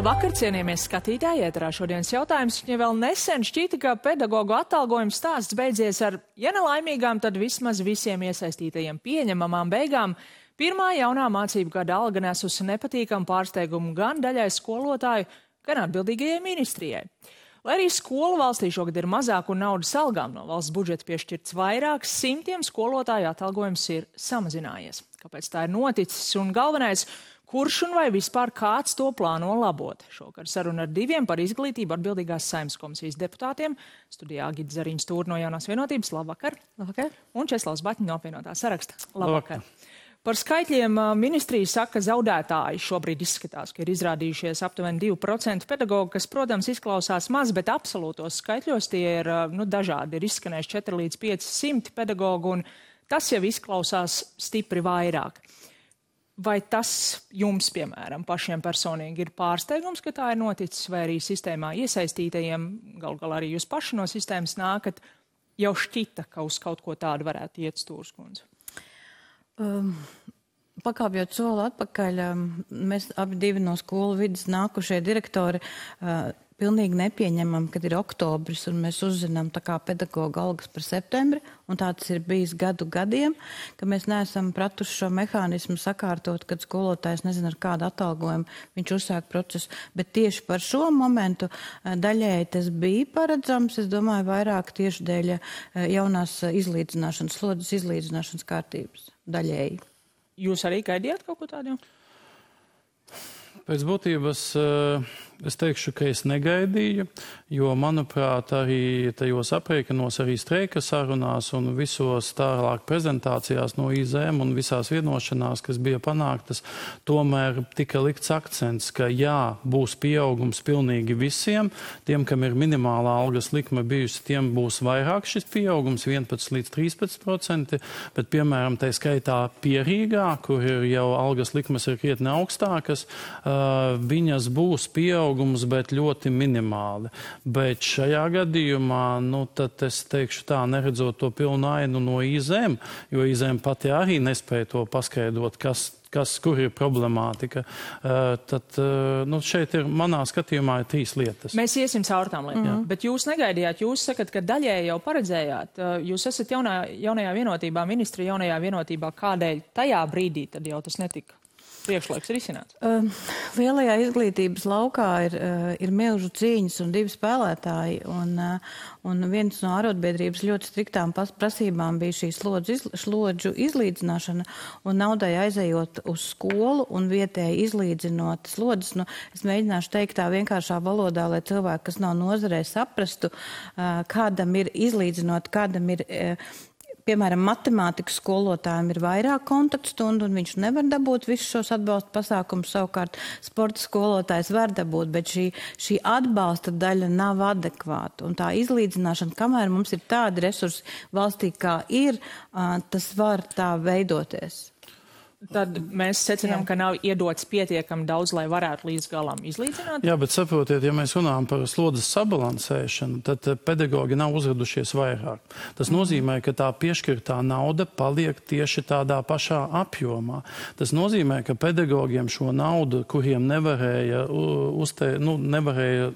Labvakar, cienījamies skatītāji, ēterā šodienas jautājums. Ja vēl nesen šķita, ka pedagogu atalgojuma stāsts beidzies ar, ja nelaimīgām, tad vismaz visiem iesaistītajiem pieņemamām beigām, pirmā jaunā mācību gada alga nesusi nepatīkamu pārsteigumu gan daļai skolotāju, gan atbildīgajai ministrijai. Lai arī skolu valstī šogad ir mazāk un naudas algām no valsts budžeta piešķirts vairāk, simtiem skolotāju atalgojums ir samazinājies. Kāpēc tā ir noticis un galvenais, kurš un vai vispār kāds to plāno labot? Šokar saruna ar diviem par izglītību atbildīgās Saeimas komisijas deputātiem. Studijā Gita Zariņš Stūra no Jaunās vienotības. Labvakar. Labvakar. Un Česlavs Baķņa no apvienotā saraksta. Labvakar. Par skaitļiem ministrija saka, ka zaudētāji šobrīd izskatās, ka ir izrādījušies aptuveni 2% pedagogu, kas, protams, izklausās maz, bet absolūtos skaitļos tie ir dažādi. Ir izskanējuši 4 līdz 500 pedagogu, un tas jau izklausās stipri vairāk. Vai tas jums, piemēram, pašiem personīgi ir pārsteigums, ka tā ir noticis, vai arī sistēmā iesaistītajiem, gal galā arī jūs paši no sistēmas nākat, jau šķita, ka uz kaut ko tādu varētu iet Stūras kundze? Pakāpjot soli atpakaļ, mēs abi divi no skolu vidas nākušie direktori pilnīgi nepieņemam, kad ir oktobris un mēs uzzinām tā kā pedagoga algas par septembri, un tā tas ir bijis gadiem, ka mēs neesam pratuši šo mehānismu sakārtot, kad skolotājs nezina ar kādu atalgojumu viņš uzsāk procesu, bet tieši par šo momentu daļēji tas bija paredzams, es domāju, vairāk tieši dēļ jaunās izlīdzināšanas, slodzes izlīdzināšanas kārtības daļēji. Jūs arī gaidījāt kaut ko tādu? Pēc būtības es teikšu, ka es negaidīju, jo, manuprāt, arī tajos aprēķinos, arī streika sarunās un visos tālāk prezentācijās no IZM un visās vienošanās, kas bija panāktas, tomēr tika likts akcents, ka jā, būs pieaugums pilnīgi visiem. Tiem, kam ir minimālā algas likme bijusi, tiem būs vairāk šis pieaugums, 11 līdz 13%, bet, piemēram, tai skaitā Pierīgā, kur ir jau algas likmes ir krietni augstākas, viņas būs pieaugums, bet ļoti minimāli. Bet šajā gadījumā, tad es teikšu tā, neredzot to pilnu ainu no IZM, jo IZM pati arī nespēja to paskaidrot, kur ir problemātika. Tad šeit ir, manā skatījumā, ir 3 lietas. Mēs iesim caur tām lietām, bet jūs negaidījāt, jūs sakat, ka daļēji jau paredzējāt. Jūs esat jaunajā vienotībā, ministri jaunajā vienotībā, kādēļ tajā brīdī tad jau tas netika priekšlaiks risināts? Lielajā izglītības laukā ir milžu cīņas un 2 spēlētāji, un viens no arotbiedrības ļoti striktām prasībām bija šī slodžu izlīdzināšana, un naudai aizejot uz skolu un vietēji izlīdzinot slodzes. Es mēģināšu teikt tā vienkāršā valodā, lai cilvēki, kas nav nozarē, saprastu, kādam ir izlīdzinot, kādam ir piemēram, matemātikas skolotājiem ir vairāk kontaktstundu, un viņš nevar dabūt visus šos atbalsta pasākumus, savukārt sporta skolotājs var dabūt, bet šī atbalsta daļa nav adekvāta. Un tā izlīdzināšana, kamēr mums ir tādi resursi valstī, kā ir, tas var tā veidoties. Tad mēs secinām, ka nav iedots pietiekami daudz, lai varētu līdz galam izlīdzināt? Jā, bet saprotiet, ja mēs runājam par slodzes sabalansēšanu, tad pedagogi nav uzradušies vairāk. Tas nozīmē, ka tā piešķirtā nauda paliek tieši tādā pašā apjomā. Tas nozīmē, ka pedagogiem šo naudu, kuriem nevarēja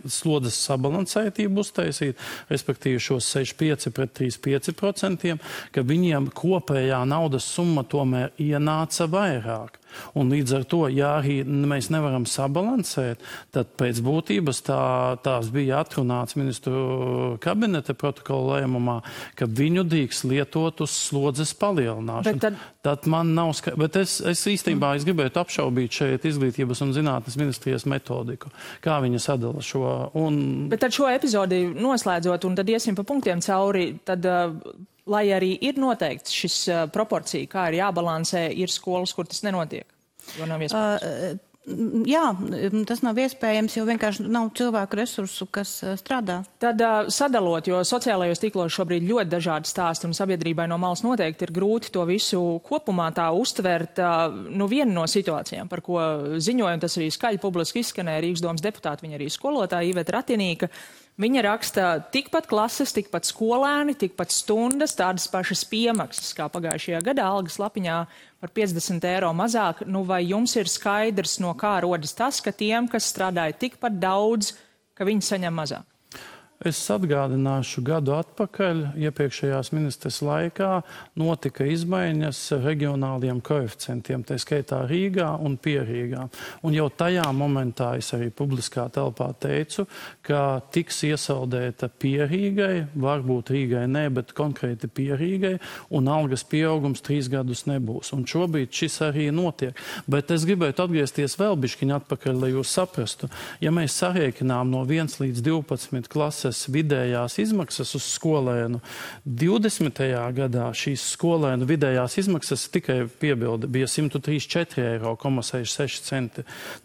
slodzes sabalansētību uztaisīt, respektīvi šos 6,5 pret 3,5%, ka viņiem kopējā naudas summa tomēr ienāca vairāk. Un līdz ar to, ja arī mēs nevaram sabalansēt, tad pēc būtības tās bija atrunāts ministru kabineta protokola lēmumā, ka viņu drīkst lietot uz slodzes palielināšanu. Tad man nav bet es īstenībā gribētu apšaubīt šeit izglītības un zinātnes ministrijas metodiku, kā viņa sadala šo. Bet tad šo epizodi noslēdzot, un tad iesim pa punktiem cauri, tad lai arī ir noteikts šis proporcija, kā ir jābalansē, ir skolas, kur tas nenotiek, jo nav iespējams. Jā, tas nav iespējams, jo vienkārši nav cilvēku resursu, kas strādā. Tad sadalot, jo sociālajos tīklos šobrīd ļoti dažādi stāsti un sabiedrībai no malas noteikti ir grūti to visu kopumā tā uztvert. Viena no situācijām, par ko ziņoja, un tas arī skaļi publiski izskanēja Rīgas domas deputāti, viņa arī skolotāja Iveta Ratinīka, Viņa raksta tikpat klases, tikpat skolēni, tikpat stundas, tādas pašas piemaksas kā pagājušajā gadā, algas lapiņā par 50 eiro mazāk. Nu, vai jums ir skaidrs, no kā rodas tas, ka tiem, kas strādāja tikpat daudz, ka viņi saņem mazāk? Es atgādināšu gadu atpakaļ, iepriekšējās ministres laikā notika izmaiņas reģionāliem koeficientiem, tā skaitā Rīgā un Pierīgā. Un jau tajā momentā es arī publiskā telpā teicu, ka tiks iesaldēta Pierīgai, varbūt Rīgai ne, bet konkrēti Pierīgai, un algas pieaugums 3 gadus nebūs. Un šobrīd šis arī notiek. Bet es gribētu atgriezties vēl bišķiņ atpakaļ, lai jūs saprastu. Ja mēs sarēķinām no 1 līdz 12 klases vidējās izmaksas uz skolēnu. 20. gadā šīs skolēnu vidējās izmaksas tikai piebilde bija 134,66 eiro.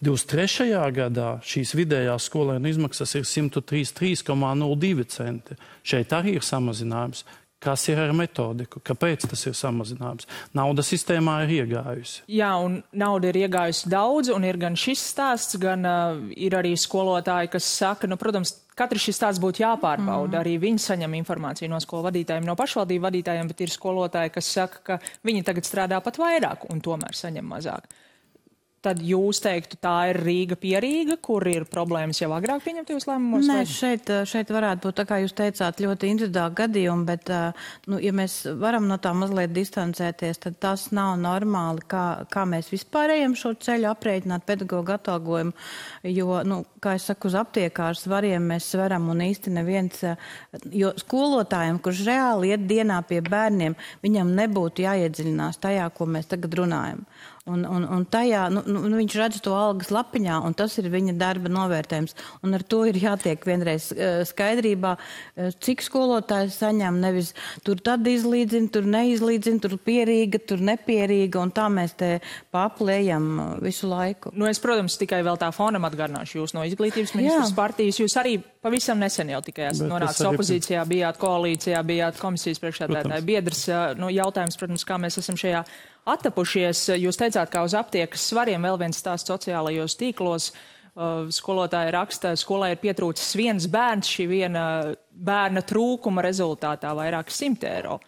23. gadā šīs vidējās skolēnu izmaksas ir 133,02 centi. Šeit arī ir samazinājums. Kas ir ar metodiku? Kāpēc tas ir samazinājums? Nauda sistēmā ir iegājusi. Jā, un nauda ir iegājusi daudz, un ir gan šis stāsts, gan ir arī skolotāji, kas saka, nu, protams, katrs šis stāsts būtu jāpārbauda. Arī viņi saņem informāciju no skolu vadītājiem, no pašvaldību vadītājiem, bet ir skolotāji, kas saka, ka viņi tagad strādā pat vairāk un tomēr saņem mazāk. Tad jūs teiktu, tā ir Rīga Pierīga, kur ir problēmas jau agrāk pieņemtajos lēmumos? Nē, šeit varētu būt, tā kā jūs teicāt, ļoti individuāli gadījumi, bet, nu, ja mēs varam no tā mazliet distancēties, tad tas nav normāli, kā mēs vispār ejam šo ceļu aprēķināt pedagoģu atalgojumu, jo, nu, kā es saku, uz aptiekārs svariem mēs svaram un īsti neviens, jo skolotājiem, kurš reāli iet dienā pie bērniem, viņam nebūtu jāiedziļinās tajā, ko mēs tagad runājam. Un tajā, viņš redz to algas lapiņā, un tas ir viņa darba novērtējums. Un ar to ir jātiek vienreiz skaidrībā, cik skolotājs saņem, nevis tur tad izlīdzina, tur neizlīdzina, tur pierīga, tur nepierīga, un tā mēs te paplējam visu laiku. Nu, es, protams, tikai vēl tā fonam atgādināšu jūs no izglītības ministras partijas. Jūs arī pavisam nesen jau tikai esat nonācis opozīcijā, bijāt koalīcijā, bijāt komisijas priekšsēdētāja biedrs. Nu, jautājums, protams, kā mēs esam šajā attapušies. Jūs teicāt, kā uz aptiekas svariem, vēl viens stāsts sociālajos tīklos. Skolotāja raksta, skolai ir pietrūcis viens bērns, šī viena bērna trūkuma rezultātā vairāk 100 eiro.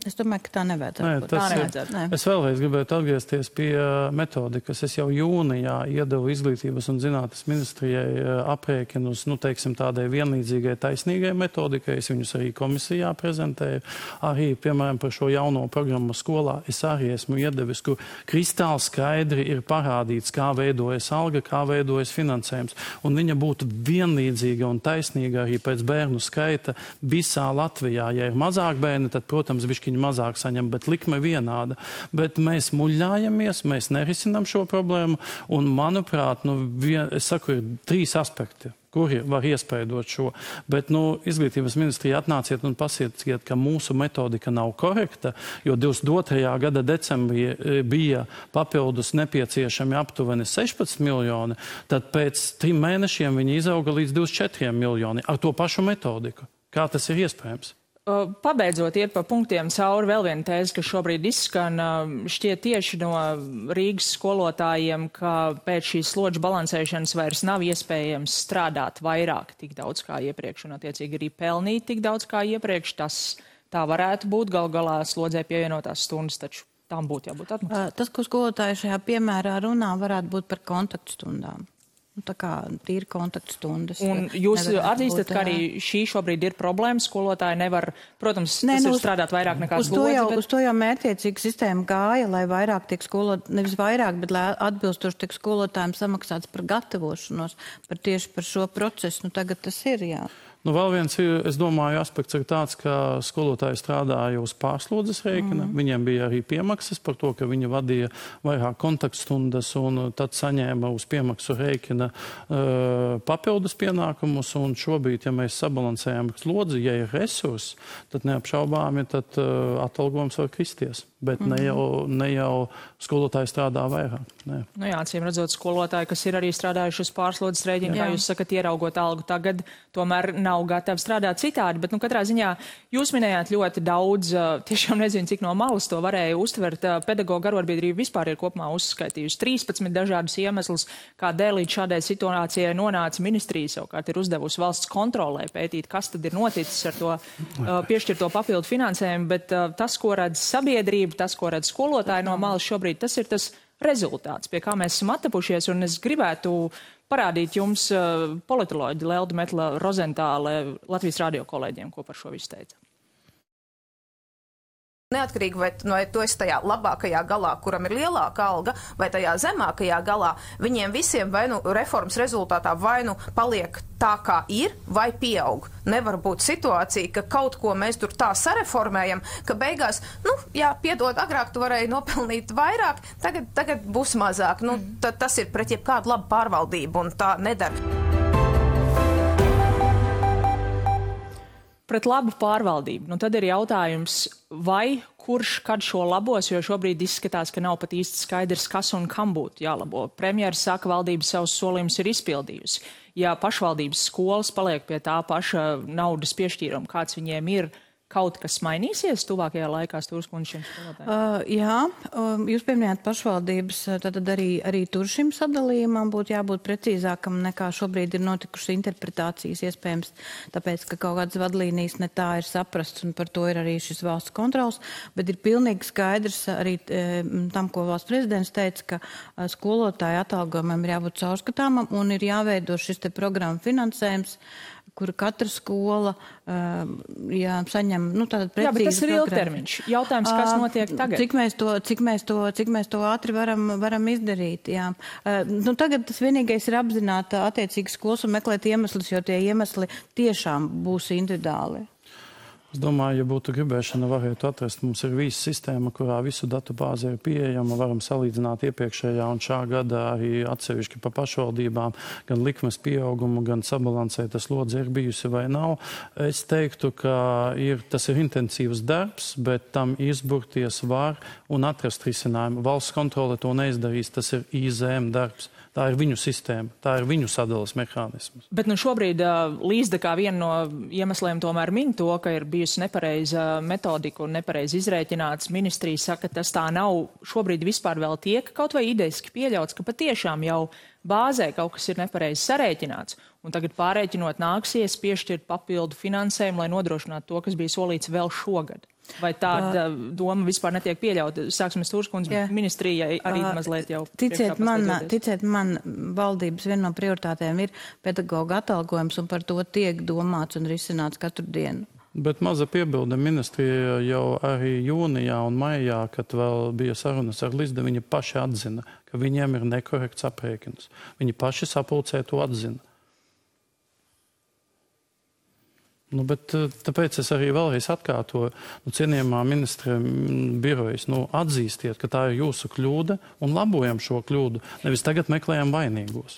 Es domāju, ka tā nevajadzētu. Es vēlreiz gribētu atgriezties pie metodikas. Es jau jūnijā iedevu izglītības un zinātnes ministrijai aprēķinus, nu, teiksim, tādai vienlīdzīgai taisnīgai metodikai. Es viņus arī komisijā prezentēju. Arī, piemēram, par šo jauno programmu skolā es arī esmu iedevis, kur kristāli skaidri ir parādīts, kā veidojas alga, kā veidojas finansējums. Un viņa būtu vienlīdzīga un taisnīga arī pēc bērnu skaita visā Latvijā. Ja ir mazāk bērni, tad, protams, bišķiņi mazāk saņem, bet likme vienāda. Bet mēs muļļājamies, mēs nerisinām šo problēmu, un, manuprāt, es saku, ir 3 aspekti, kuri var iespaidot šo. Bet, izglītības ministrija atnāciet un pasieciet, ka mūsu metodika nav korekta, jo 22. gada decembrī bija papildus nepieciešami aptuveni 16 miljoni, tad pēc 3 mēnešiem viņi izauga līdz 24 miljoni ar to pašu metodiku. Kā tas ir iespējams? Pabeidzot iet pa punktiem cauri, vēl viena tēze, kas šobrīd izskan, šķiet tieši no Rīgas skolotājiem, ka pēc šīs slodžu balansēšanas vairs nav iespējams strādāt vairāk tik daudz kā iepriekš un attiecīgi arī pelnīt tik daudz kā iepriekš. Tas tā varētu būt, gal galā slodzē pievienotās stundas, taču tām būtu jābūt atmaksātām. Tas, ko skolotāji šajā piemērā runā, varētu būt par kontaktstundām. Tā kā tīri kontaktstundas. Un jūs atzīstat, ka arī šī šobrīd ir problēma, skolotāji nevar, protams, tas ir strādāt vairāk nekā slodzi. Uz to jau mērķiecīga sistēma gāja, lai vairāk tiek nevis vairāk, bet lai atbilstoši tiek skolotājiem samaksāts par gatavošanos, tieši par šo procesu. Tagad tas ir, jā. Vēl viens, es domāju, aspekts ir tāds, ka skolotāji strādāja uz pārslodzes rēķina. Viņiem bija arī piemaksas par to, ka viņi vadīja vairāk kontaktstundas un tad saņēma uz piemaksu rēķina papildus pienākumus. Un šobrīd, ja mēs sabalansējam slodzi, ja ir resursi, tad neapšaubāmi, tad atalgojums var kristies. bet ne jau skolotāji strādā vairāk. Nē. Nu jā, acīm redzot, skolotāji, kas ir arī strādājuši uz pārslodzes rēķinu, kā jūs sakat, ieraugot algu tagad, tomēr nav gatavi strādāt citādi. Bet, katrā ziņā jūs minējāt ļoti daudz, tiešām nezinu, cik no malas to varēja uztvert. Pedagoģu arotbiedrība vispār ir kopumā uzskaitījusi 13 dažādus iemeslus, kādēļ līdz šādai situācijai nonāca ministrija, savukārt ir uzdevusi valsts kontrolē pētīt, kas tad ir noticis ar to piešķirto papildu finansējumu, bet tas, ko redz sabiedrība, tas, ko redz skolotāji no malas šobrīd, tas ir tas rezultāts, pie kā mēs esam attapušies, un es gribētu parādīt jums politoloģi Leldu Metla Rozentāle Latvijas radio kolēģiem, ko par šo visu teica. Neatkarīgi, vai tu esi tajā labākajā galā, kuram ir lielāka alga, vai tajā zemākajā galā, viņiem visiem vai nu reformas rezultātā vai nu paliek tā, kā ir, vai pieaug. Nevar būt situācija, ka kaut ko mēs tur tā sareformējam, ka beigās, piedod, agrāk tu varēji nopelnīt vairāk, tagad būs mazāk. Tas ir pret jebkādu labu pārvaldību, un tā nedara. Pret labu pārvaldību. Tad ir jautājums, vai kurš kad šo labos, jo šobrīd izskatās, ka nav pat īsti skaidrs, kas un kam būtu jālabo. Premjeras saka, valdība savus solījumus ir izpildījusi. Ja pašvaldības skolas paliek pie tā paša naudas piešķīruma, kāds viņiem ir, kaut kas mainīsies tuvākajā laikā, Stūras kundze, šiem skolotājiem? Jā, jūs pieminējāt pašvaldības, tad arī tur šim sadalījumam būtu jābūt precīzākam nekā šobrīd ir notikušas interpretācijas, iespējams, tāpēc, ka kaut kādas vadlīnijas ne tā ir saprasts, un par to ir arī šis valsts kontrols, bet ir pilnīgi skaidrs arī tam, ko valsts prezidents teica, ka skolotāju atalgojumam ir jābūt caurskatāmam un ir jāveido šis te programma finansējums, kur katra skola saņem, tātad precīzi. Jā, bet tas ir ilgtermiņš. Jautājums, kas notiek tagad? Cik mēs to ātri varam izdarīt, jā. Tagad tas vienīgais ir apzināt attiecīgi skolas un meklēt iemeslus, jo tie iemesli tiešām būs individuāli. Es domāju, ja būtu gribēšana, varētu atrast. Mums ir visa sistēma, kurā visu datu bāze ir pieejama. Varam salīdzināt iepriekšējā un šā gada arī atsevišķi pa pašvaldībām, gan likmes pieaugumu, gan sabalansēta slodze ir bijusi vai nav. Es teiktu, ka tas ir intensīvs darbs, bet tam izburties var un atrast risinājumu. Valsts kontrole to neizdarīs, tas ir IZM darbs. Tā ir viņu sistēma, tā ir viņu sadalas mehānisms. Bet šobrīd Līsda kā viena no iemesliem tomēr min to, ka ir bijusi nepareiza metodika un nepareizi izrēķināts. Ministrija saka, ka tas tā nav. Šobrīd vispār vēl tiek kaut vai ideiski pieļauts, ka patiešām jau bāzē kaut kas ir nepareizi sarēķināts. Un tagad pārēķinot nāksies piešķirt papildu finansējumu, lai nodrošinātu to, kas bija solīts vēl šogad. Vai tāda doma vispār netiek pieļauta? Sāksim Stūras kundze, ministrijai arī mazliet jau. Ticiet man, valdības viena no prioritātēm ir pedagoģa atalgojums, un par to tiek domāts un risināts katru dienu. Bet maza piebilde, ministrija jau arī jūnijā un maijā, kad vēl bija sarunas ar Līsdu, viņi paši atzina, ka viņiem ir nekorekts aprēķins. Viņi paši sapulcē to atzina. Bet tāpēc es arī vēlreiz atkārtoju, cienījamā ministra birojas, atzīstiet, ka tā ir jūsu kļūda un labojam šo kļūdu, nevis tagad meklējam vainīgos.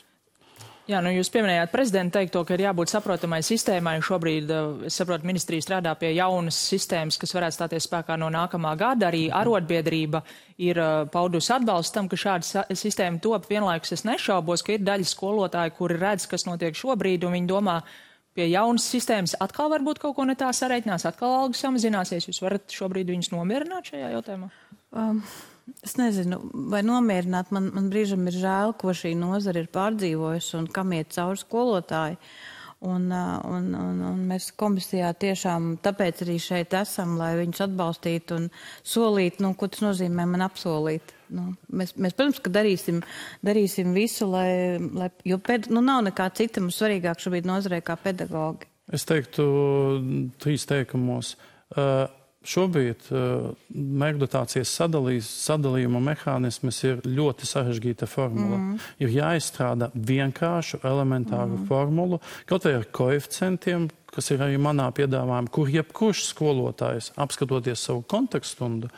Jā, jūs pieminējāt prezidentu teikto, ka ir jābūt saprotamai sistēmai. Šobrīd, es saprotu, ministrija strādā pie jaunas sistēmas, kas varētu stāties spēkā no nākamā gada. Arī arotbiedrība ir paudusi atbalstu tam, ka šāda sistēma top. Vienlaikus es nešaubos, ka ir daļa skolotāji, kuri redz, kas notiek šobrīd, un viņi domā, pie jaunas sistēmas atkal varbūt kaut ko ne tā sareiķinās, atkal algas samazināsies. Jūs varat šobrīd viņus nomierināt šajā jautājumā? Es nezinu, vai nomierināt. Man brīžam ir žēl, ko šī nozara ir pārdzīvojusi un kam iet cauri skolotāji. Un mēs komisijā tiešām tāpēc arī šeit esam, lai viņus atbalstītu un solītu, ko tas nozīmē man apsolīt. Mēs, protams, ka darīsim visu, jo nav nekā cita mums svarīgāk šobrīd nozarē kā pedagogi. Es teiktu 3 teikumos. Šobrīd mērķdotācijas sadalījuma mehānisms ir ļoti sarežģīta formula. Ir jāizstrāda vienkāršu, elementāru formulu, kaut vai ar koeficientiem, kas ir arī manā piedāvājumā, kur jebkurš skolotājs, apskatoties savu kontekststundu,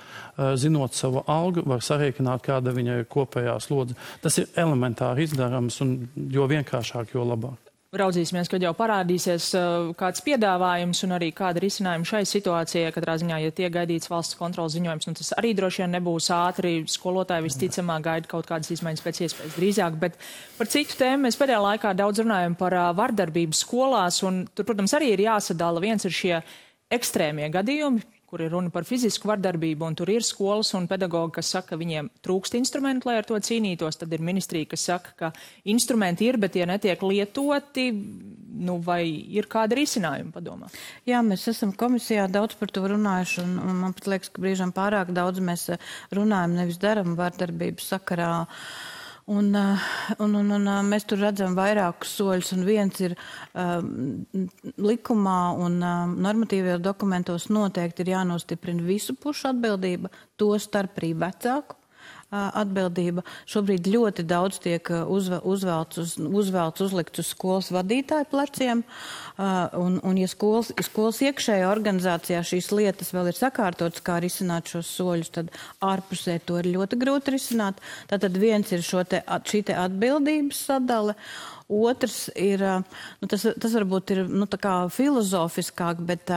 zinot savu algu, var sarēķināt, kāda viņa ir kopējā slodze. Tas ir elementāri izdarams, un jo vienkāršāk, jo labāk. Raudzīsimies, kad jau parādīsies kāds piedāvājums un arī kāda risinājuma šai situācijai. Katrā ziņā, ja tiek gaidīts valsts kontrolas ziņojums, tas arī droši vien nebūs ātri. Skolotāji visticamāk gaida kaut kādas izmaiņas pēc iespējas drīzāk. Bet par citu tēmu mēs pēdējā laikā daudz runājam par vardarbību skolās. Un tur, protams, arī ir jāsadala. Viens ir šie ekstrēmie gadījumi, kur ir runa par fizisku vardarbību, un tur ir skolas un pedagogi, kas saka, ka viņiem trūkst instrumentu, lai ar to cīnītos. Tad ir ministrija, kas saka, ka instrumenti ir, bet tie netiek lietoti. Vai ir kāda risinājuma padomā? Jā, mēs esam komisijā daudz par to runājuši, un man pat liekas, ka brīžam pārāk daudz mēs runājam, nevis daram vardarbības sakarā. Un mēs tur redzam vairākus soļus, un viens ir likumā un normatīvajos dokumentos noteikti ir jānostiprina visu pušu atbildība, to starp arī vecāku atbildība. Šobrīd ļoti daudz tiek uzlikts uz skolas vadītāju pleciem, un ja skolas iekšējā organizācijā šīs lietas vēl ir sakārtotas, kā risināt šos soļus, tad ārpusē to ir ļoti grūti risināt. Tātad viens ir šī te atbildības sadale. Otrs ir, tas varbūt ir tā kā filozofiskāk, bet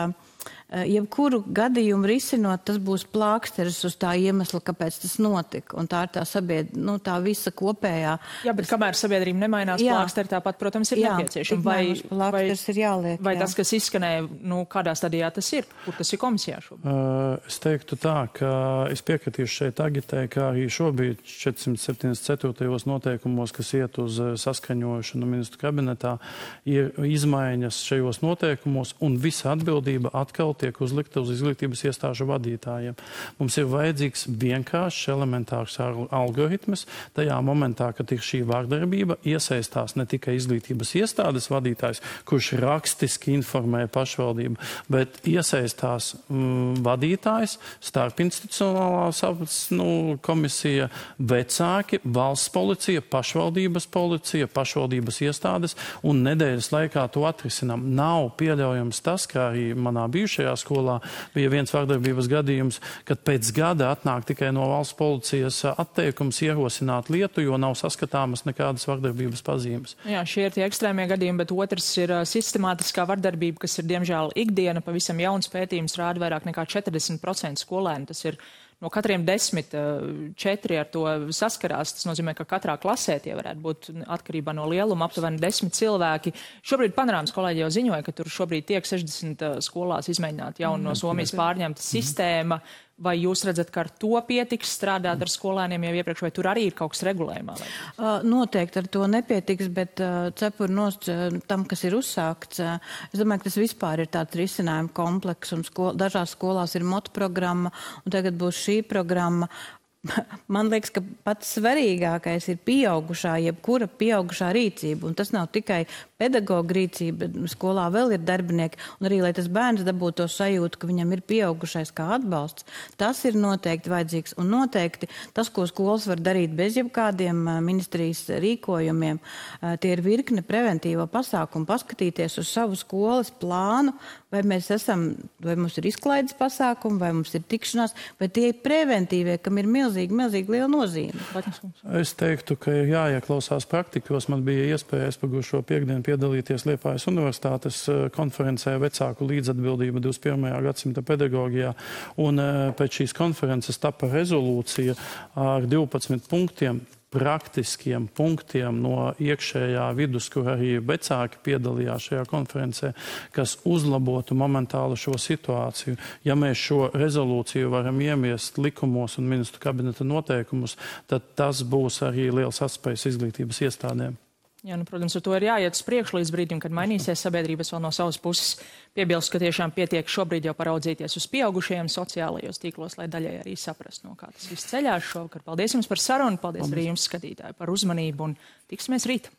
jebkuru gadījumu risinot, tas būs plāksteris uz tā iemesla, kāpēc tas notika. Un tā ir tā visa kopējā. Jā, bet kamēr sabiedrība nemainās, plāksteri tāpat, protams, ir nepieciešama. Plāksteris ir jāliek. Vai tas, kas izskanēja, kādā stadijā tas ir? Kur tas ir komisijā šobrīd? Es teiktu tā, ka es piekritīšu šeit agitē, kā arī šobrīd 474. noteikumos, kas iet uz saskaņošanu ministru kabinetā, ir izmaiņas šajos noteikumos, un visa atbildība atkal tiek uzlikta uz izglītības iestāžu vadītājiem. Mums ir vajadzīgs vienkāršs, elementārs algoritms. Tajā momentā, kad ir šī vardarbība, iesaistās ne tikai izglītības iestādes vadītājs, kurš rakstiski informē pašvaldību, bet iesaistās vadītājs, starpinstitucionālās komisija, vecāki, valsts policija, pašvaldības policija, pašvaldības iestādes, un nedēļas laikā to atrisinām. Nav pieļaujams tas, kā arī manā bijušajā skolā bija viens vardarbības gadījums, kad pēc gada atnāk tikai no valsts policijas atteikums ierosināt lietu, jo nav saskatāmas nekādas vardarbības pazīmes. Jā, šie ir tie ekstrēmie gadījumi, bet otrs ir sistemātiskā vardarbība, kas ir diemžēl ikdiena. Pavisam jauns pētījums rāda vairāk nekā 40% skolēnu. Tas ir no katriem 10, 4 ar to saskarās. Tas nozīmē, ka katrā klasē tie varētu būt atkarībā no lieluma aptuveni 10 cilvēki. Šobrīd Panorāmas kolēģi jau ziņoja, ka tur šobrīd tiek 60 skolās izmēģināt jaunu no Somijas pārņemta sistēma. Vai jūs redzat, ka ar to pietiks strādāt ar skolēniem jau iepriekš, vai tur arī ir kaut kas regulējumā? Noteikti ar to nepietiks, bet cepur nost tam, kas ir uzsākts. Es domāju, ka tas vispār ir tāds risinājuma kompleks, un dažās skolās ir motu programma, un tagad būs šī programma. Man liekas, ka pats svarīgākais ir pieaugušā, jebkura pieaugušā rīcība, un tas nav tikai pedagoga rīcība, skolā vēl ir darbinieki, un arī, lai tas bērns dabūtu to sajūtu, ka viņam ir pieaugušais kā atbalsts, tas ir noteikti vajadzīgs, un noteikti tas, ko skolas var darīt bez jebkādiem ministrijas rīkojumiem, tie ir virkne preventīvo pasākumu, paskatīties uz savu skolas plānu, vai mums ir izklaides pasākumi, vai mums ir tikšanās, vai tie ir preventīvie, kam ir milzīgi liela nozīme. Es teiktu, ka ir jāieklausās praktikos. Man bija iespēja pagājušo piekdienu piedalīties Liepājas Universitātes konferencē vecāku līdzatbildība 21. gadsimta pedagogijā. Un pēc šīs konferences tapa rezolūcija ar 12 punktiem, praktiskiem punktiem no iekšējā vidus, kur arī vecāki piedalījās šajā konferencē, kas uzlabotu momentāli šo situāciju. Ja mēs šo rezolūciju varam iemiest likumos un ministru kabineta noteikumus, tad tas būs arī liels atspējs izglītības iestādēm. Jā, protams, ar to ir jāiet uz priekšu līdz brīdim, kad mainīsies sabiedrības vēl no savas puses. Piebilst, ka tiešām pietiek šobrīd jau paraudzīties uz pieaugušajiem sociālajos tīklos, lai daļai arī saprast, no kā tas viss ceļās šovakar. Paldies jums par sarunu, paldies arī jums, skatītāji, par uzmanību un tiksimies rīt.